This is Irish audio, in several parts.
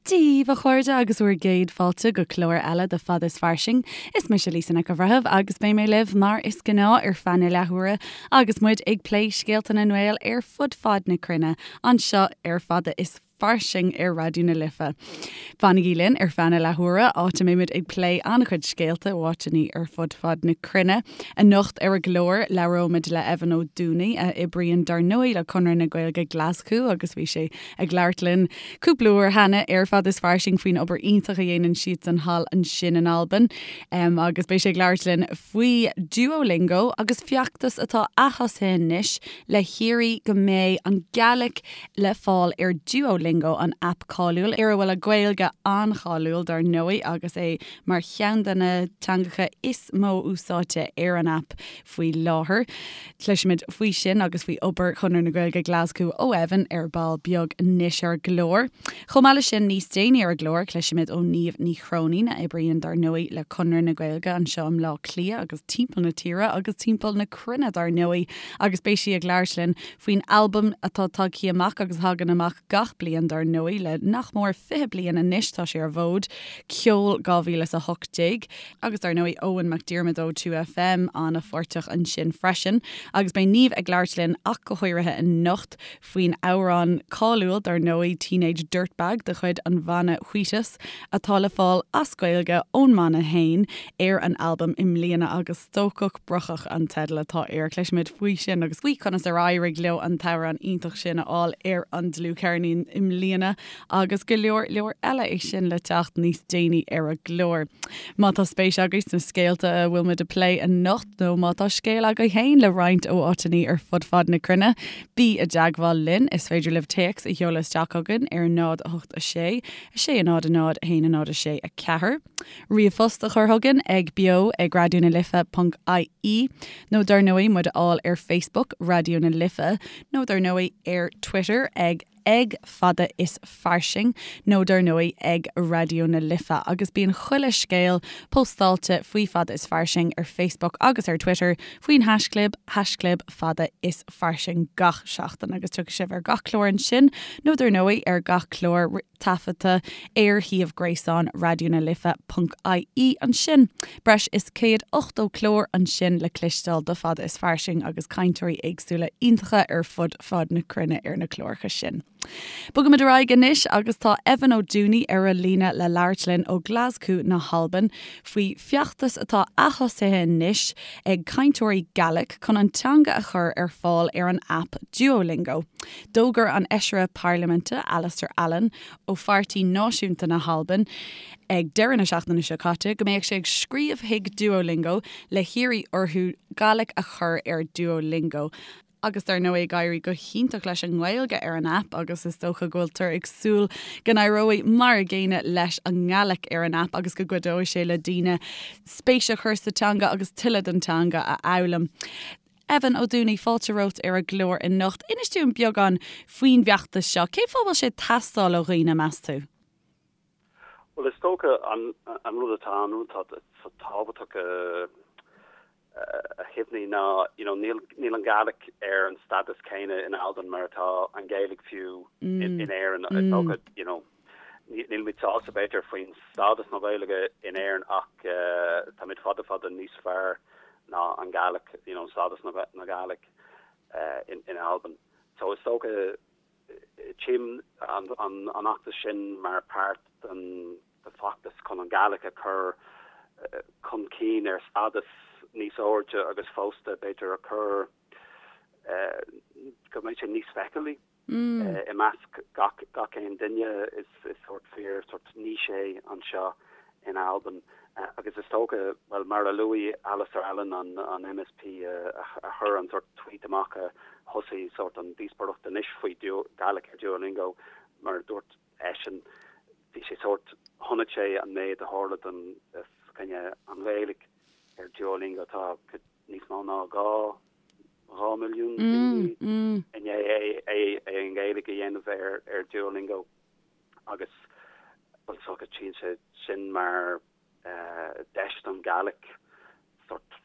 Dia daoibh, a chairde, agus bhur gcéad fáilte go clár eile de Fada is Fairsing. Is mise Lisa Nic an Bhreithimh agus beidh mé libh mar is gnáth ar feadh na leathuaire agus muid ag plé scéalta na nGael ar fud fad na cruinne anseo ar Fada is Fairsing ar Raidió na Life. Fanaigí linn ar feadh na leathuaire, áit a mbeimid ag plé an-chuid scéalta ó áiteanna ar fud fad na cruinne. Anocht ar an gclár, labhróimid le Evan Ó Dúnaigh, a oibríonn dar ndóigh le Conradh na Gaeilge Glaschú agus bhí sé ag labhairt linn cúpla uair cheana ar Fada is Fairsing faoin obair iontach a dhéanann siadsan thall ansin in Albain. Agus beidh sé ag labhairt linn faoi Duolingo agus feachtas atá athosaithe anois le hiarraidh go mbeidh an Gàidhlig le fáil ar Duolingo, an aip cáiliúil ar a bhfuil an Ghaeilge an-cháiliúil dar ndóigh agus é mar cheann de na teangacha is mó úsáidte ar an aip faoi láthair. Cloisfimid faoi sin agus faoi obair Chonradh na Gaeilge Glaschú ó Evan ar ball beag anois ar an gclár. Chomh maith leis sin, níos déanaí ar an gclár, cloisfimid ó Niamh Ní Chróinín, a oibríonn dar ndóigh le Conradh na Gaeilge anseo i mBleá Cliath agus timpeall na tíre agus timpeall na cruinne dar ndóigh agus beidh sí ag labhairt linn faoin albam atá tagtha amach agus a thagann amach gach bliain dar ndóigh le nach mór 20 bliain anois tá sé ar an bhfód, Ceol 2018. Agus dar ndóigh Eoghan McDiarmid ó 2FM an-pháirteach ansin freisin. Agus beidh Niamh ag labhairt linn ach go háirithe anocht faoin amhrán cáiliúil dar ndóigh Teenage Dirtbag de chuid an bhanna Wheatus atá le fáil as Gaeilge ón mbanna fhéin ar an albam i mbliana agus Stócach Brocach an teideal atá air. Cloisfimid faoi sin agus faoi conas ar éirigh leo an t-amhrán iontach sin a fháil ar an dlúthcheirnín i mbliana agus go leor leor eile é sin le teacht níos déanaí ar an gclár. Má tá spéis agaibh sna scéalta a bhfuil muid a plé anocht nó má tá scéal agaibh féin le roinnt ó áiteanna ar fud fad na cruinne, bí i dteagmháil linn. Is féidir libh téacs a sheoladh isteach chugainn ar 0 8 6 6 0 0 1 0 6 4. Ríomhphost a chur chugainn ag beo ag raidió na life ponc ie nó dar ndóigh muid a fháil ar Facebook, Raidió na Life, nó dar ndóigh ar Twitter ag ag Fada is Fairsing nó dar ndóigh ag Raidió na Life agus bíonn chuile scéal póstáilte faoi Fada is Fairsing ar Facebook agus ar Twitter faoin haischlib, haischlib Fada is Fairsing gach seachtain agus tiocfaidh sibh ar gach clár ansin nó dar ndóigh ar gach clár taifeadta ar shuíomh gréasáin Raidió na Life ponc ie ansin. Breis is 180 clár ansin le cloisteáil de Fada is Fairsing agus cainteoirí éagsúla iontacha ar fud fad na cruinne ar na cláracha sin. Bogaimid ar aghaidh anois agus tá Evan Ó Dúnaigh ar an líne le labhairt linn ó Ghlaschú na hAlban faoi feachtas atá athosaithe anois ag cainteoirí Gaelic chun an teanga a chur ar fáil ar an aip Duolingo. D'fhógair an Fheisire Parlaiminte Alasdair Allan ó Pháirtí Náisiúnta na hAlban ag deireadh na seachtaine seo caite go mbeadh sé ag scríobh chuig Duolingo le hiarraidh orthu Gaelic a chur ar Duolingo. Agus dar ndóigh ag éirí go hiontach leis an nGaeilge ar an aip agus is dócha go bhfuiltear ag súil go n-éireoidh mar a gcéanna leis an nGaelic ar an aip agus go gcuideoidh sé le daoine spéis a chur sa teanga agus tuilleadh den teanga a fhoghlaim. Evan Ó Dúnaigh, fáilte romhat ar an gclár anocht. Inis dúinn beagán faoin bhfeachtas seo. Cén fáth a bhfuil sé ag teastáil ó dhaoine, meas tú? Bhuel, is dócha an rud atá an rud atá tábhachtach a chuimhní ná you know níl níl an Gàidhlig ar an stádas céanna in Albain mar atá an Ghaeilge fiú in Éirinn. Is dócha you know nílimid sásta b'fhéidir faoin stádas na Gaeilge in Éirinn ach táimid fada fada níos fearr ná an Gàidhlig, you know stádas na Gàidhlig in in Albain. So is dócha tchím an an an fheachtas sin mar páirt den de feachtas chun an Gàidhlig a chur chun cinn ar stádas níos airde agus fosta b'fhéidir a chur go mbeidh sé níos feiceálaí. I measc gach gach aon duine is is sórt fíor sórt niche é anseo in Albain agus is dócha, bhuel mar a luaigh Alasdair Allan an an MSP a a chuir an sórt tweet amach a thosaigh sórt an díospóireacht anois faoi Gaelic ar Duolingo mar a dúirt eisean bhí sé sórt chonaic sé an méid a tharla don coinne an Ghaeilge ar Duolingo tá níos mó ná 2 2 milliún daoine i ndiaidh é an Ghaeilge a dhéanamh ar ar Duolingo agus bhuel is dócha tchíonn sé sin mar deis don Ghàidhlig sort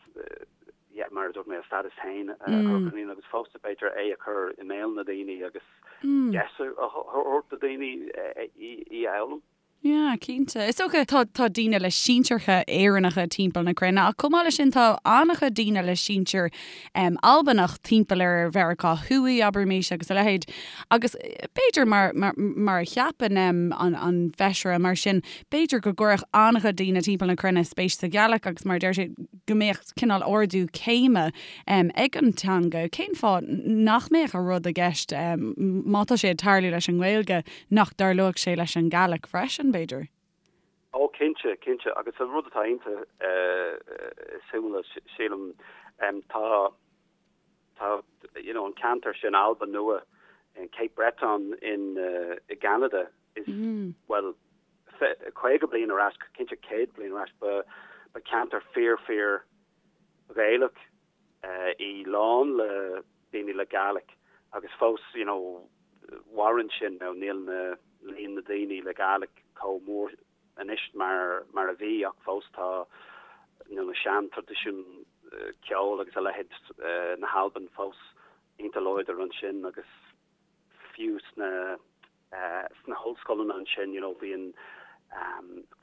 yeah mar a dúirt mé a stádas féin a chur chun cinn agus fosta b'fhéidir é a chur i mbéal na daoine agus deis a thabhairt do daoine í a fhoghlaim. Yeah, cinnte. Is dócha tá tá daoine le sinsearcha Éireannacha timpeall na cruinne ach chomh maith leis sin tá an-chuid daoine le sinsir um, Albanach timpeall ar Mheiriceá Thuaidh, abraimis, agus a leithéid. Agus b'fhéidir mar, mar, mar a cheapann um, an, an feisire mar sin, b'fhéidir go gcuirfeadh an-chuid daoine timpeall na cruinne spéis sa Ghàidhlig agus mar a deir sé go mbeadh cineál ardú céime um, ag an teanga. Cén fáth nach mbeadh an rud i gceist um, má tá sé ag tarlú leis an nGaeilge nach dtarlódh sé leis an Ghàidhlig freisin, b'fhéidir? Ó, cinnte, cinnte. Agus an rud atá iontach suimiúil, sílim, tá, tá, you know, an ceantar sin, Albain Nua, in Cape Breton in, i gCeanada, is, bhuel, 50 bliain ar ais, cinnte 100 bliain ar ais, ba, ba ceantar fíor, fíor Ghaelach í, lán le daoine le Gàidhlig agus fós, you know, mhaireann sin, now níl na, líon na daoine le Gàidhlig chomh mór anois mar, mar a bhí ach fós tá, you know, na sean-traidisiúin ceoil agus a leithéid na hAlban fós iontach láidir ansin agus fiú sna. sna hollscoileanna ansin, you know, bíonn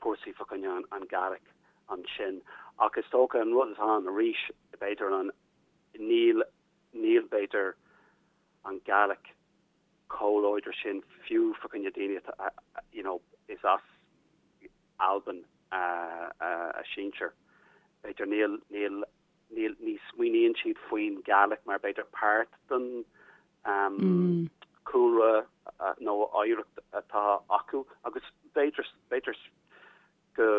cúrsaí fá choinne an Gàidhlig ansin. Ach is dócha an rud atá ann arís, b'fhéidir an, níl, níl b'fhéidir an Gàidhlig chomh láidir sin fiú fá choinne daoine atá, you know, is as Albain a sinsir. B'fhéidir níl, níl, níl, ní smaoiníonn siad faoin Gàidhlig mar b'fhéidir páirt den cúlra nó oidhreacht atá acu agus b'fhéidir, b'fhéidir go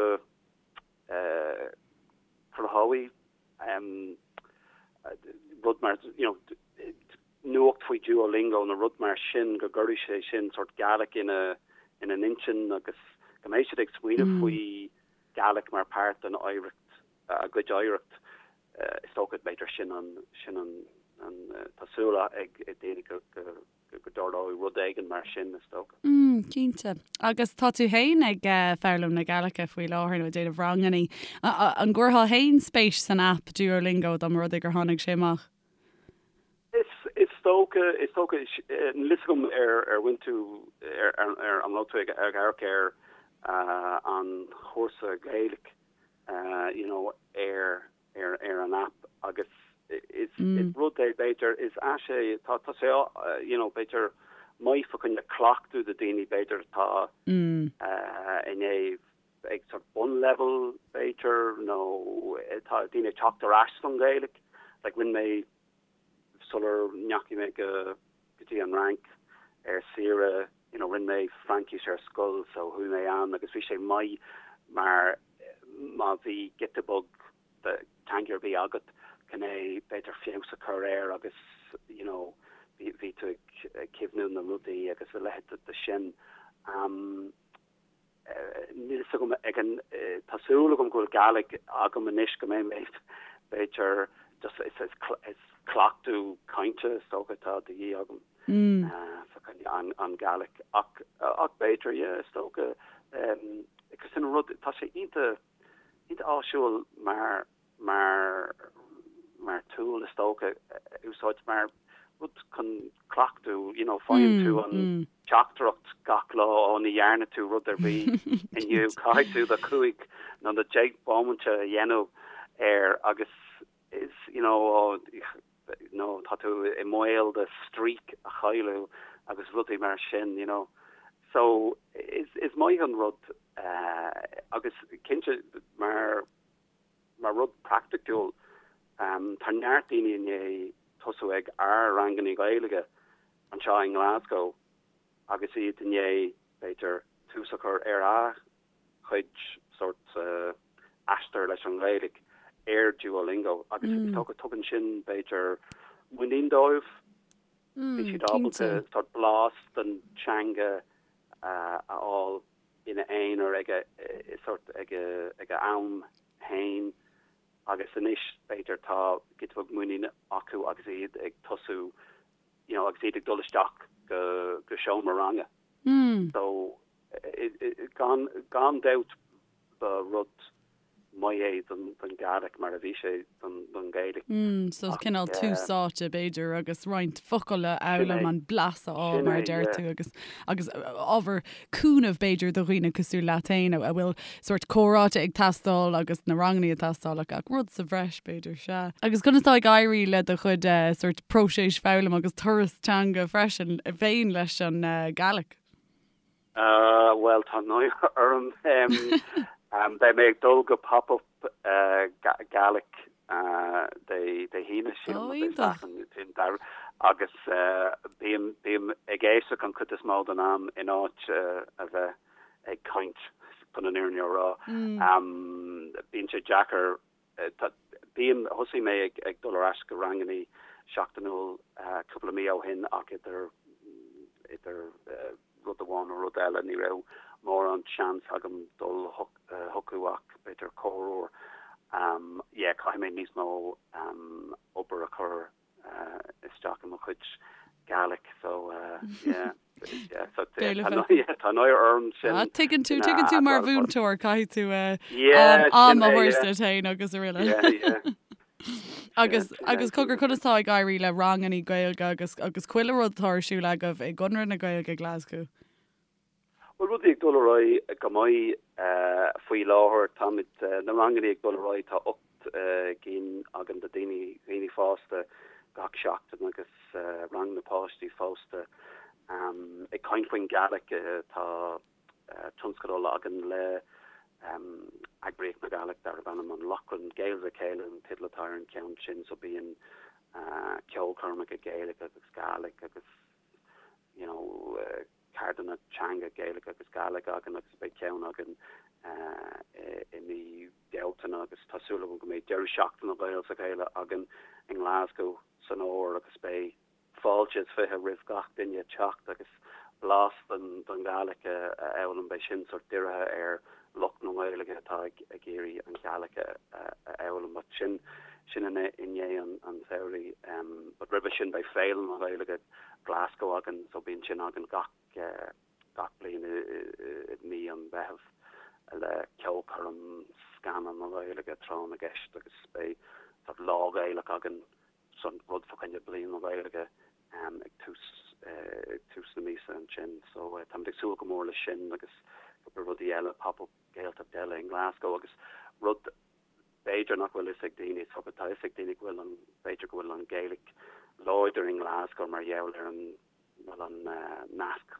cruthóidh rud mar, you know, nuacht faoi Duolingo nó rud mar sin go gcuirfidh sé sin sórt Gàidhlig ina, ina n-intinn agus go mbeidh siad ag smaoineamh faoi Gàidhlig mar páirt den oidhreacht, a gcuid oidhreacht. Is dócha, b'fhéidir, sin an, sin an, an, tá súil ag daoine go, go, go dtarlóidh rud éigin mar sin, is dócha. Mm, cinnte. Agus tá tú féin ag foghlaim na Gàidhlige faoi láthair nó ag déanamh rangannaí. An gcuirfeá féin spéis san aip Duolingo dá mba rud é gur tháinig sé amach? Is, is dócha, is dócha, níl fhios agam ar, ar bhain tú, ar, ar, ar, an raibh tú ag, ag amharc ar an chúrsa Gaeilge you know, ar, ar, ar an aip agus is, is rud é b'fhéidir, is ais é, tá, tá sé, you know, b'fhéidir maith fá choinne cleachtadh do daoine b'fhéidir atá i ndiaidh ag sort bunlevel b'fhéidir nó tá daoine ag teacht ar ais don Ghaeilge, like rinne mé sular ndeachaigh mé go go dtí an Fhrainc ar saoire, you know, rinne mé Fraincis ar scoil so chuaigh mé ann agus bhí sé maith mar má bhí giota beag de teanga ar bith agat chun é b'fhéidir feabhas a chur air agus you know bhí bhí tú ag cuimhniú na rudaí agus a leithéid de sin. Um, Níl fhios agam ag an, tá súil agam go bhfuil Gàidhlig agam anois go mbeidh mé b'fhéidir just is is is cleachtadh cainte is dócha atá de dhíth agam fá choinne an an Gàidhlig ach ach b'fhéidir yeah is dócha agus sin an rud tá sé iontach iontach áisiúil mar mar mar tool is dócha a úsáid mar rud chun cleachtadh, you know, faigheann tú an teachtaireacht gach lá, ó ní dhearna tú rud ar bith inniu, caithfidh tú do chúig nó do dheich bomaite a dhéanamh air agus is, you know, ó nó tá tú i mbaol do streak a chailleadh agus rudaí mar sin, you know. So is is maith an rud agus cinnte mar Mar rud praiticiúil, tá neart daoine i ndiaidh tosú ag ár rangannaí Gaeilge anseo i nGlasgow agus iad i ndiaidh, b'fhéidir, tús a chur ar a gcuid sórt aistear leis an nGaeilge ar Duolingo agus is dócha tugann sin, b'fhéidir, muinín dóibh. Bhí siad ábalta sórt blas den teanga a fháil. ina aonar ag a sórt ag a am féin agus anois b'fhéidir tá giota beag muinín acu agus iad ag tosú you know agus iad ag dul isteach go go seomra ranga. So gan gan dabht ba rud. maith é don Ghàidhlig mar a bhí sé don Ghaeilge. Mm, so cineál tús áite b'fhéidir agus roinnt focal a fhoghlaim, an blas a fháil mar a deir tú agus agus ábhar cúnaimh b'fhéidir do dhaoine cosúil leat féin a bhfuil sórt comhráite ag teastáil agus na ranganna ag teastáil ach ach rud sa bhreis b'fhéidir, sea. Agus conas tá ag éirí le do chuid sórt próiseas foghlaim agus turas teanga freisin féin leis an Gàidhlig? Bhuel, tá náire orm. Beidh mé ag dul go pop-up Gaelic Dé hAoine, sílim, nó Dé Sathairn, agus bím bím ag éisteacht an chuid is mó den am in áit a bheith ag caint, chun an fhírinne a rá. Bíonn sé deacair Bím, thosaigh mé ag dul ar ais go rangannaí seachtainiúil cúpla mí ó shin ach idir, idir rud amháin nó rud eile ní raibh mórán seans agam dul chucu ach b'fhéidir corruair. Yeah, caithfidh mé níos mó obair a chur isteach i mo chuid Gaelic so yeah yeah so tá náire orm sin. Ah tuigeann tú tuigeann tú mar mhúinteoir caithfidh tú am a thabhairt duit féin agus araile. Yeah yeah. Agus agus cogar conas tá ag éirí le rangannaí Gaeilge agus agus chuile rud atá ar siúl agaibh i gConradh na Gaeilge Glasgow? Bhuel, rudaí ag dul ar aghaidh go maith faoi láthair. Táimid, na rangannaí ag dul ar aghaidh, tá 8 gcinn againn do daoine, dhaoine fásta gach seachtain agus rang na páistí fosta. Ag caint faoin Ghaelic, tá tionscadal againn le eagraíocht na Gaelic darb ainm An Lochlainn, Gaels le Chéile an teideal atá ar an cheann sin, so bíonn ceolchoirmeacha Gaeilge agus Gàidhlig agus you know, ceardlanna teanga Gaeilge agus Gàidhlig againn agus beidh ceann againn i mí Bealtaine agus tá súil agam go mbeidh deireadh seachtaine Gaels le Chéile againn i nGlasgow san fhómhar agus beidh fáilte is 20 roimh gach duine teacht agus blas den Ghàidhlig a fhoghlaim. Beidh sin sort dírithe ar lucht na Gaeilge atá ag iarraidh an Ghàidhlig a fhoghlaim but sin sin i ndiaidh an tsamhraidh. But roimhe sin beidh Féile na Gaeilge Glasgow againn so bíonn sin againn gach gach bliain i mí an Mheithimh le ceolchoirm, scannán na Gaeilge, tráth na gceist agus beidh sort lá Gaelach againn san rud fá choinne Bliain na Gaeilge ag tús ag tús na míosa ansin so táimid ag súil go mór leis sin agus cúpla rudaí eile pop-up Gaeltacht eile i nGlasgow agus rud b'fhéidir nach bhfuil fhios ag daoine tá fhios ag daoine go bhfuil an b'fhéidir go bhfuil an Ghaeilge láidir i nGlasgow mar gheall ar an bhfuil an nasc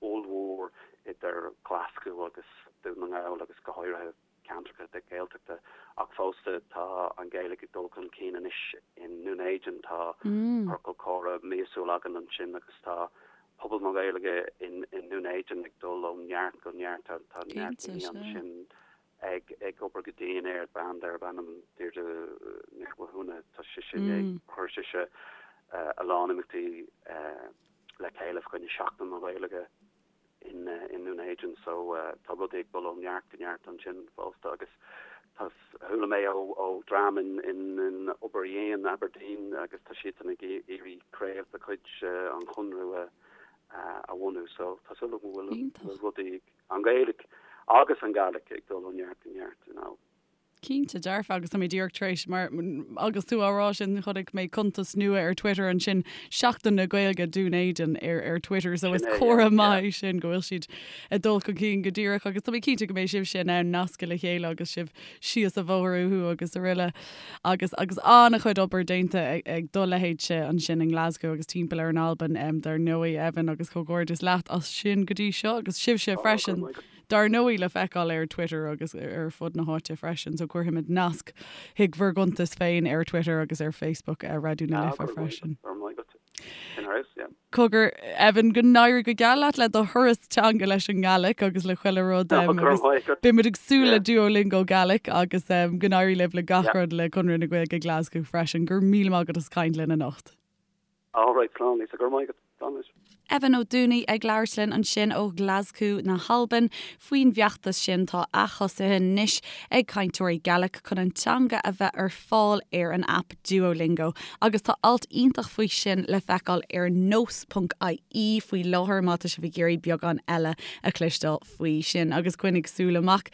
ollmhór idir Glaschú agus Dún na nGall agus go háirithe ceantracha de Ghaeltachta ach fosta tá an Ghaeilge ag dul chun cinn anois i nDún Éideann. Tá ciorcal comhrá míosúil againn ansin agus tá pobal na Gaeilge i nDún Éideann ag dul ó neart go neart. Tá neart daoine ansin ag ag obair go dian air, bean darb ainm Deirdre Nic Mhathúna, tá sise ag chuir sise a lán imeachtaí le chéile fá choinne Seachtain na Gaeilge in i nDún Éideann so tá rudaí ag dul ó neart go neart ansin fosta agus tá chuala mé ó ó dream in in in Obar Dhéin, Aberdeen agus tá siadsan ag iarraidh craobh de chuid an Chonradh a a bhunú so tá súil agam go bhfuil rudaí An Ghaeilge agus an Gàidhlig ag dul ó neart go neart, you know. Cinnte dearfa, agus tá mé díreach tar éis, mar agus tú á rá sin, chonaic mé cuntas nua ar Twitter ansin, Seachtain na Gaeilge Dún Éideann ar ar Twitter, so is comhartha maith é sin go bhfuil siad ag dul chun cinn go díreach agus tá mé cinnte go mbeidh sibhse in ann nascadh le chéile agus sibh síos an bhóthar uathu agus araile. Agus agus an-chuid obair déanta ag do leithéidse ansin i nGlasgow agus timpeall ar an Albain, dar ndóigh, Evan, agus comhghairdeas leat as sin go dtí seo agus sibhse freisin, dar ndóigh, le feiceáil ar Twitter agus ar fud na háite freisin. So cuirfimid nasc chuig bhur gcuntais féin ar Twitter agus ar Facebook Raidió na Life freisin. Cogar, Evan, go n-éirí go geal leat le do thuras teanga leis an nGàidhlig agus le chuile rud agus beidh muid ag súil le Duolingo Gaelic agus go n-éirí libh le gach rud le Conradh na Gaeilge Glasgow freisin. Go raibh míle maith agat as caint linn anocht. All right, slán Lisa, go raibh maith agat. Slán anois. Evan Ó Dúnaigh ag labhairt linn ansin ó Ghlaschú na hAlban faoin bhfeachtas sin tá athosaithe anois ag cainteoirí Gaelic chun an teanga a bheith ar fáil ar an aip Duolingo agus tá alt iontach faoi sin le feiceáil ar nós.ie faoi láthair má tá sibh ag iarraidh beagán eile a chloisteáil faoi sin agus coinnigh súil amach.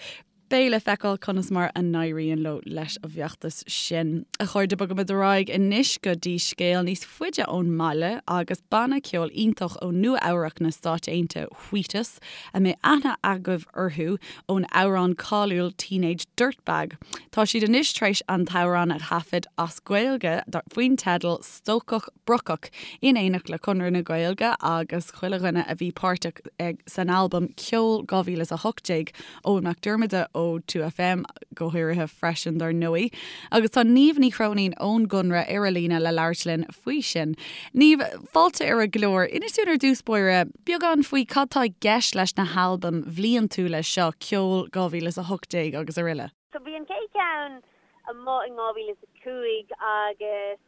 Beidh le feiceáil conas mar a n-éiríonn leo leis an bhfeachtas sin. A chairde, bogaimid ar aghaidh anois go dtí scéal níos faide ón mbaile agus banna ceoil iontach ó Nua Eabhrac na Stáit Aontaithe, Wheatus, a mbeidh aithne agaibh orthu ón amhrán cáiliúil Teenage Dirtbag. Tá siad anois tar éis an t-amhrán a thaifead as Gaeilge faoin teideal Stócach Brocach in éineacht le Conradh na Gaeilge agus chuile dhuine a bhí páirteach san albam Ceol 2018, Eoghan Mac Diarmada ó 2FM go háirithe freisin dar ndóigh. Agus tá Niamh Ní Chróinín ón gConradh ar an líne le labhairt linn faoi sin. Niamh, fáilte ar an gclár. Inis dúinn ar dtús báire beagán faoi cad tá i gceist leis na halbaim bhliantúla seo, Ceol 2018 agus aroile. So bhí an chéad cheann amuigh in 2005 agus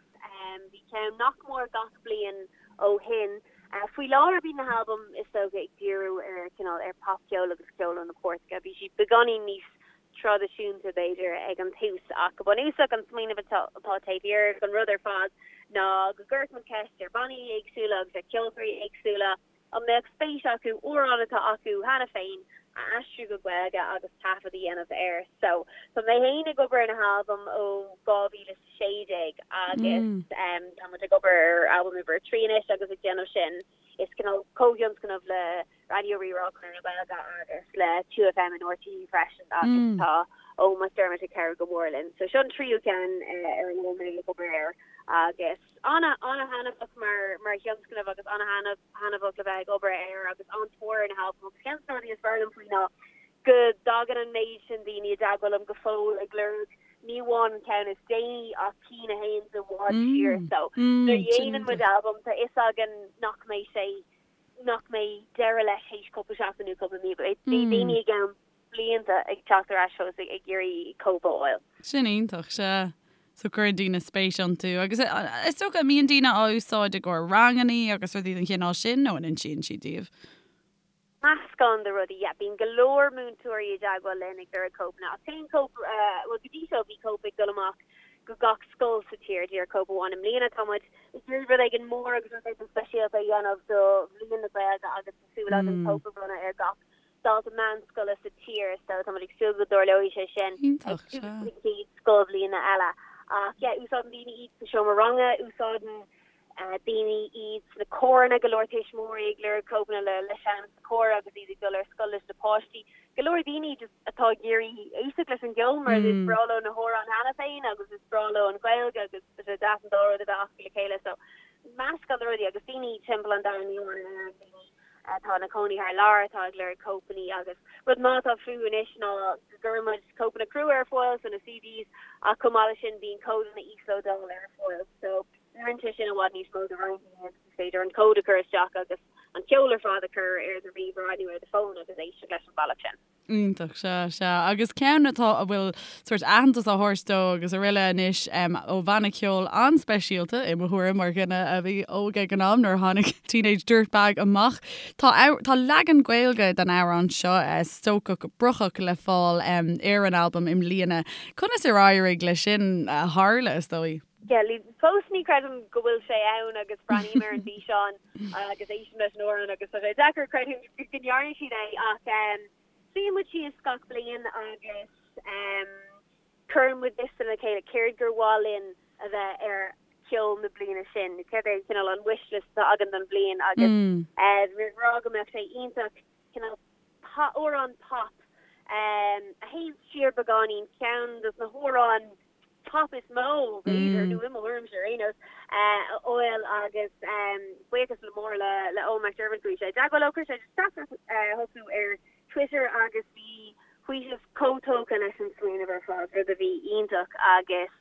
bhí ceann nach mór gach bliain ó shin. Faoi láthair bíonn na halbaim is dócha ag díriú ar cineál ar popcheol agus ceol ó na cairteacha. Bhí siad beagáinín níos traidisiúnta b'fhéidir ag an tús ach go bunúsach an smaoineamh atá taobh thiar den rud ar fad ná go gcuirfeadh muid ceist ar bhannaí éagsúla agus ar cheoltóirí éagsúla an mbeadh spéis acu amhrán atá acu cheana féin a aistriú go Gaeilge agus taifead a dhéanamh air. So tá mé féin ag obair ar na halbaim ó 2016 agus tá muid ag obair ar albam uimhir 3 anois agus ag déanamh sin is cineál comhthionscnamh le Raidió Rí-Rá, Conradh na Gaeilge agus le 2FM in RTÉ freisin agus tá Eoghan McDermott ag cabhrú go mór linn. So seo an tríú ceann ar a bhfuil mé ag obair air agus ana-thaitneamhach mar mar thionscnamh agus ana-thaitneamhach le bheith ag obair air agus an-tóir ar na halbaim agus ceann de na rudaí is fearr liom faoi ná go dtagann an méid sin daoine i dteagmháil liom go fóill ag lorg ní amháin an ceann is déanaí ach cinn a théann i bhfad siar. So nuair a dhéanann muid albam tá fhios againn nach mbeidh sé nach mbeidh deireadh leis théis cúpla seachtain nó cúpla mí. Beidh daoine i gceann blianta ag teacht ar ais fós ag iarraidh cóip a fháil. Sin iontach, sea. So cuireann daoine spéis iontu agus is dócha an mbíonn daoine á úsáid i gcomhair rangannaí agus rudaí den chineál sin nó an insíonn siad daoibh? Meascán de rudaí, yeah. Bíonn go leor múinteoirí i dteagmháil linn ag lorg cóipeanna ach téann cóip, bhuel go dtí seo bhí cóip ag dul amach go gach scoil sa tír, díreach cóip amháin. I mbliana tá muid ag iarraidh rud éigin mór agus rud éigin speisialta a dhéanamh do Bhliain na Gaeilge agus tá súil againn cóip a bhronnadh ar gach dalta meánscoile sa tír so tá muid ag súil go dtarlóidh sé sin ag tús na chéad scoilbhliana eile. Ach yeah, úsáideann daoine iad sa seomra ranga, úsáideann daoine iad sna córanna, go leor tuismitheoirí ag lorg cóipeanna le le seinm sa chór agus iad ag dul ar scoil leis na páistí. Go leor daoine just atá ag iarraidh éisteacht leis an gceol mar is breá leo na hamhráin cheana féin agus is breá leo an Ghaeilge agus tá sé deas an dá rud a bheith acu le chéile so meascán de rudaí agus daoine timpeall an domhain ní amháin in Éirinn daoine atá ina cónaí thar lear atá ag lorg cóipeanna agus rud maith atá fúthu anois ná go gcuireann muid cóipeanna crua ar fáil so na CDs ach chomh maith leis sin bíonn códanna íoslódála ar fáil so oireann sé sin i bhfad níos mó do roinnt daoine agus is féidir an cód a chur isteach agus an ceol ar fad a chur ar do ríomhaire nó ar do fón agus éisteacht leis an bhealach sin. Iontach, sea, sea. Agus ceann atá, a bhfuil sórt aitheantas á thabhairt dó agus aroile anois ó bhanna ceoil an-speisialta, i mo thuairim, mar dhuine a bhí óg ag an am nuair a tháinig Teenage Dirtbag amach. Tá, tá leagan Gaeilge den amhrán seo, Stócach Brocach, le fáil ar an albam i mbliana. Conas ar éirigh leis sin a tharla, is dóigh? Yeah, fós ní chreidim go bhfuil sé ann agus breathnaím ar an bhfíseán agus éistim leis an amhrán agus tá sé deacair creidiúint go ndearna siad é ach suíonn muid síos gach bliain agus cuireann muid liosta le chéile céard gur mhaith linn a bheith ar ceol na bliana sin, céard é cineál an wish list atá againn don bhliain agus bhí ag rá go mbeadh sé iontach cineál amhrán pop a théann siar beagáinín, ceann dos na hamhráin pop is mó, b'fhéidir, nó i mo thuairimse ar aon nós, a fháil agus buíochas le mór le le Eoghan McDermott chuaigh sé i dteagmháil leo, chuir sé teachtaireacht chucu ar Twitter agus bhí Wheatus chomh tógtha leis an smaoineamh ar fad, rud a bhí iontach agus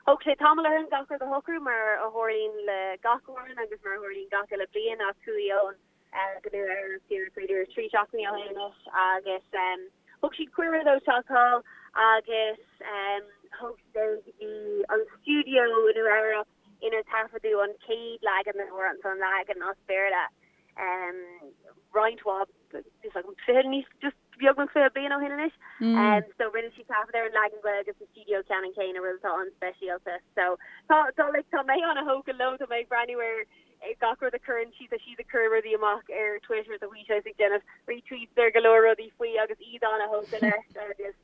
thóg sé tamall orainn gach rud a shocrú mar a tharlaíonn le gach amhrán agus mar a tharlaíonn gach uile bliain ach chuaigh Eoghan go Nua Eabhrac díreach b'fhéidir 3 seachtainí ó shin anois agus thug siad cuireadh dó teacht thall agus thóg siad é go dtí an stiúideo i Nua Eabhrac inar taifeadadh an chéad leagan den amhrán, so an leagan as Béarla roinnt mhaith, níl a fhios agam, 20 níos just. beagnach 20 bliain ó shin anois. So rinne siad taifead ar an leagan Gaeilge sa stiúideo ceannann céanna, rud atá an-speisialta. So tá tá like tá mé an-thógtha leo, tá mé ag breathnú ar gach rud a chuireann siad, tá siad ag cur rudaí amach ar Twitter, tá Wheatus ag déanamh retweets ar go leor rudaí faoi agus iad an-thógtha leis agus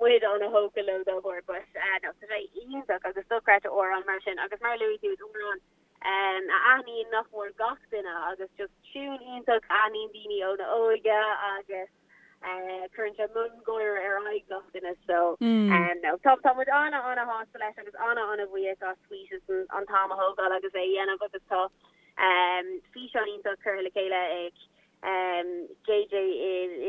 muid an-thógtha leo dá bharr. But no, tá sé iontach agus dochreidte amhrán mar sin agus mar a luaigh tú is amhrán a aithníonn nach mór gach duine agus just tiún iontach a aithníonn daoine óna óige agus cuireann sé miongháire ar aghaidh gach duine so no tá tá muid ana ana shásta leis agus ana ana bhuíoch as Wheatus an t-am a thógáil agus é a dhéanamh agus tá físeán iontach curtha le chéile ag JJ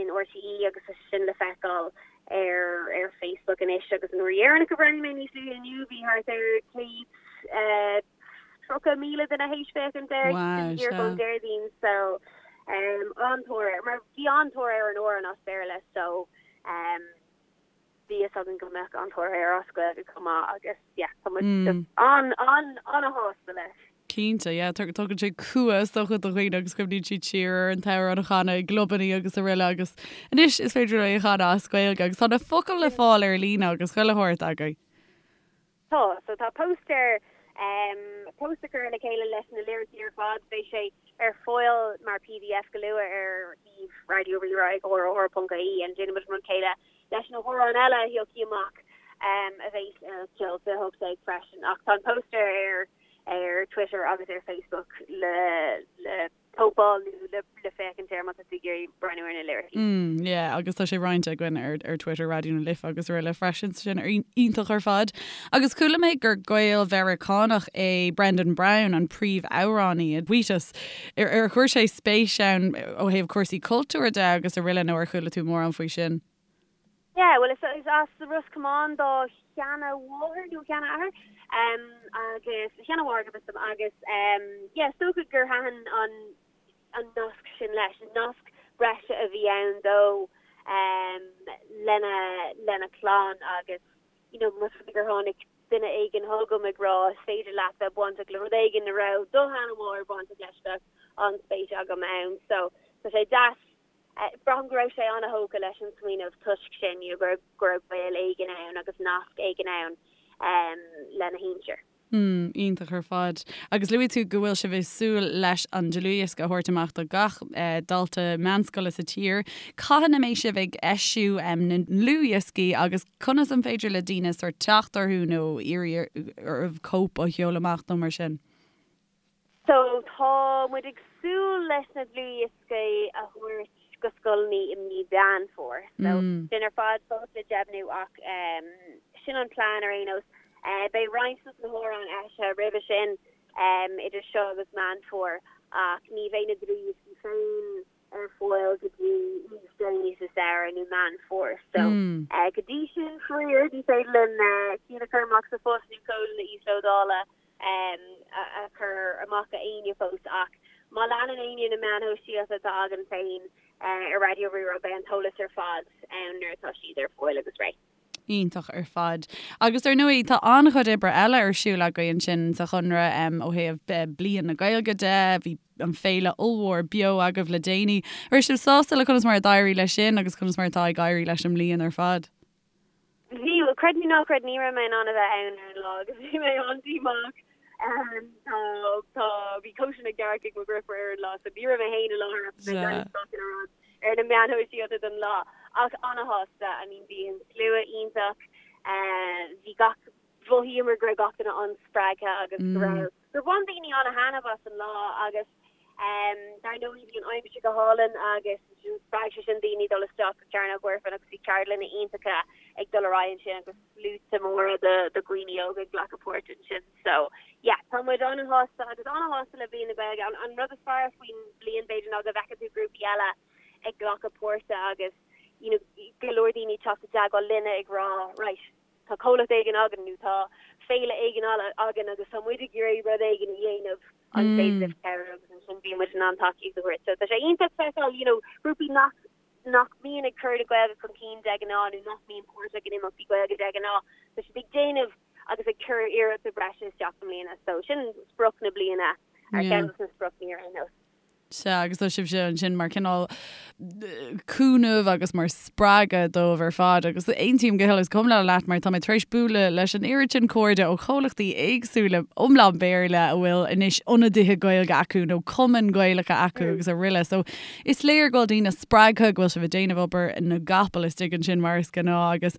in RTÉ agus tá sin le feiceáil ar ar Facebook anois agus an uair dheireanach a bhreathnaigh mé níos luaithe inniu bhí thart ar 130,000 duine théis féachaint air díreach ón Déardaoin so an-tóir air mar bhí an-tóir ar an amhrán as Béarla so bhí fhios againn go mbeadh an-tóir air as Gaeilge chomh maith agus yeah tá muid just an an an-shásta leis. Cinnte, yeah, tugann sé cumha is dócha do dhaoine agus cuimhníonn siad siar ar an t-amhrán a chanadh i gclubannaí agus araile agus anois is féidir é a chanadh as Gaeilge agus tá na focail le fáil ar líne agus chuile shórt agaibh. Tá, so tá póstaer, póstaer curtha le chéile leis na liricí ar fad, beidh sé ar fáil mar pdf go luath ar shuíomh Raidió Rí-Rá ag rr.ie and déanfaidh muid an rud céanna leis na hamhráin eile a thiocfaidh amach a bheas ar Ceol 2018 freisin ach tá an póstaer ar ar Twitter agus ar Facebook le le cóipeáil nó le le féachaint air má tá tú ag iarraidh breathnú ar na liricí. Mm, yeah, agus tá sé roinnte againn ar ar Twitter Raidió na Life agus araile freisin, sin iontach ar fad. Agus chuala mé gur Gael-Mheiriceánach é Brendan Brown, an príomhamhránaí i Wheatus. Ar ar chuir sé spéis ann ó thaobh cúrsaí cultúir de agus araile nó ar chuala tú mórán faoi sin? Yeah, bhuel is as Ros Comáin dá sheana-mháthair nó sheana-athair agus sheana-mháthair go bhfios dom agus yeah is dócha gur thaitin an an nasc sin leis, nasc breise a bhí ann dó lena lena chlann agus you know más rud é gur tháinig duine éigin chugam ag rá is féidir leat bheith bainteach le rud éigin a raibh do sheana-mháthair bainteach leis bheadh an-spéis agam ann so tá sé deas Braithim go raibh sé an-thógtha leis an smaoineamh toisc sin, you know, go raibh gaol éigin ann agus nasc éigin ann lena shinsir. Mm, iontach ar fad. Agus luaigh tú go bhfuil sibh ag súil leis an dlúthdhiosca a thabhairt amach do gach dalta meánscoile sa tír. Cathain a mbeidh sibh ag eisiú na ndlúthdhioscaí agus conas an féidir le daoine sórt teacht orthu nó iarraidh oraibh cóip a sheoladh amach nó mar sin? So, tá muid ag súil leis na dlúthdhioscaí a thabhairt go scoileanna i mí Mheán Fómhair. So, sin ar fad fós le deimhniú ach sin an plean ar aon nós. Beidh roinnt dos na hamhráin eisithe roimhe sin, idir seo agus Meán Fómhair, ach ní bheidh na dlúthdhioscaí féin ar fáil go dtí níos déanaí sa samhradh nó Meán Fómhair. So, go dtí sin, faraor, ní féidir linn cinn a chur amach sa phost nó códanna íoslódála a chur amach do éinne fós ach má leanann éinne na meáin shóisialta atá againn féin ar Raidió Rí-Rá beidh an t-eolas ar fad ann nuair atá siad ar fáil agus réidh. Iontach ar fad. Agus ar ndóigh tá an-chuid oibre eile ar siúl agaibh ansin sa Chonradh ó thaobh Bliain na Gaeilge de, bhí an féile ollmhór beo agaibh le déanaí. An raibh sibh sásta le conas mar a d'éirigh leis sin agus conas mar atá ag éirí leis an mbliain ar fad? Bhí, bhuel, creid nó ná creid, ní raibh mé in ann a bheith ann ar an lá agus bhí mé an-díomách. Tá, tá, bhí cóisir na gcearc ag mo dheirfiúr ar an lá so ní raibh mé féin i láthair ach bhí mé ag breathnú gach uile rud ar na meáin shóisialta don lá. Ach an-shásta, I mean bhí an slua iontach, bhí gach, mhothaíomar go raibh gach duine an-spreagtha agus go raibh, gur bhain daoine an-thaitneamh as an lá agus dar ndóigh bhí an aimsir go hálainn agus spreag sé sin daoine dul isteach go Cearnóg Mhuirfean agus bhí ceardlanna iontacha ag dul ar aghaidh ansin agus sluaite móra de dhaoine óga ag glacadh páirt ansin. So yeah, tá muid an-shásta agus an-shásta le Bliain na Gaeilge. An, an rud is fearr faoin bhliain b'fhéidir ná go bhfeiceann tú grúpaí eile ag glacadh páirte agus you know, go leor daoine ag teacht i dteagmháil linne ag rá right, tá comhlacht éigin againn nó tá féile éigin againn agus tá muid ag iarraidh rud éigin a dhéanamh an féidir libh cabhrú agus ansin bíonn muid in ann tacaíocht a thabhairt. So tá sé iontach feiceáil you know grúpaí nach nach mbíonn ag cur na Gaeilge chun cinn de ghnáth nó nach mbíonn páirteach in imeachtaí Gaeilge de ghnáth, tá siad ag déanamh agus ag cur iarrachta breise isteach i mbliana. So sin sprioc na bliana, ar cheann de na spriocanna ar aon nós. Sea, agus tá sibhse ansin mar cineál cúnamh agus mar spreagadh dóibh ar fad agus aontaím go huile is go hiomlán leat mar tá mé tar éis bualadh leis an oiread sin cairde ó chomhlachtaí éagsúla iomlán Béarla a bhfuil anois ionadaithe Gaeilge acu nó cumainn Gaelacha acu agus araile. So is léir go bhfuil daoine spreagtha go bhfuil sibh ag déanamh obair na gcapall istigh ansin mar is gnáth agus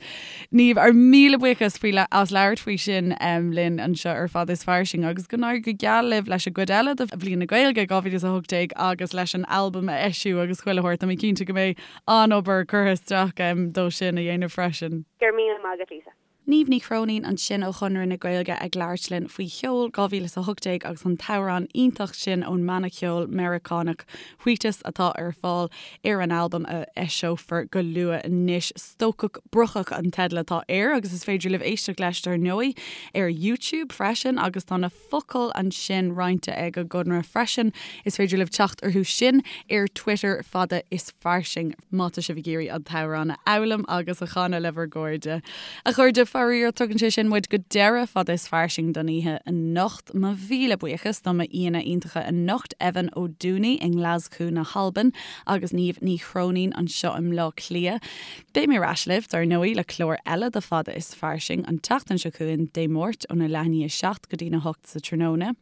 Niamh, ár míle buíochas faoi as labhairt faoi sin linn anseo ar Fada is Fairsing agus go n-éirí go geal libh leis an gcuid eile de Bhliain na Gaeilge 2018 agus leis an albam a eisiú agus chuile shórt. Tá mé cinnte go mbeidh an-obair curtha isteach dó sin a dhéanamh freisin. Go raibh míle maith agat, Lisa. Niamh Ní Chróinín ansin ó Chonradh na Gaeilge ag labhairt linn faoi Cheol 2018 agus an t-amhrán iontach sin ón mbanna ceoil Meiriceánach Wheatus atá ar fáil ar an albam a eiseofar go luath anois. Stócach Brocach an teideal atá air agus is féidir libh éisteacht leis dar ndóigh ar YouTube freisin agus tá na focail ansin roinnte ag an gConradh freisin. Is féidir libh teacht orthu sin ar Twitter fada is fairsing má tá sibh ag iarraidh an t-amhrán a fhoghlaim agus a chanadh le bhur gcairde. A chairde, faraor, tugann sé sin muid go deireadh fada is fairsing don oíche anocht. Mo mhíle buíochas do m'aíonna iontacha anocht, Evan Ó Dúnaí i nGlaschú na hAlban agus Niamh Ní Chróinín anseo i mBleá Cliath. Beidh mé ar ais libh, dar ndóigh, le clár eile de Fada is Fairsing an tseachtain seo chugainn, Dé Máirt, óna leath i ndiaidh 7 go dtína 8 sa tráthnóna.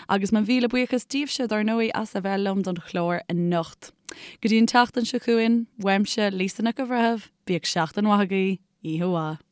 Agus mo mhíle buíochas daoibhse, dar ndóigh, as a bheith liom don chlár anocht. Go dtí an tseachtain seo chugainn, uaimse, Lisa Nic an Bhreithimh, bíodh seachtain mhaith agaibh, oíche mhaith.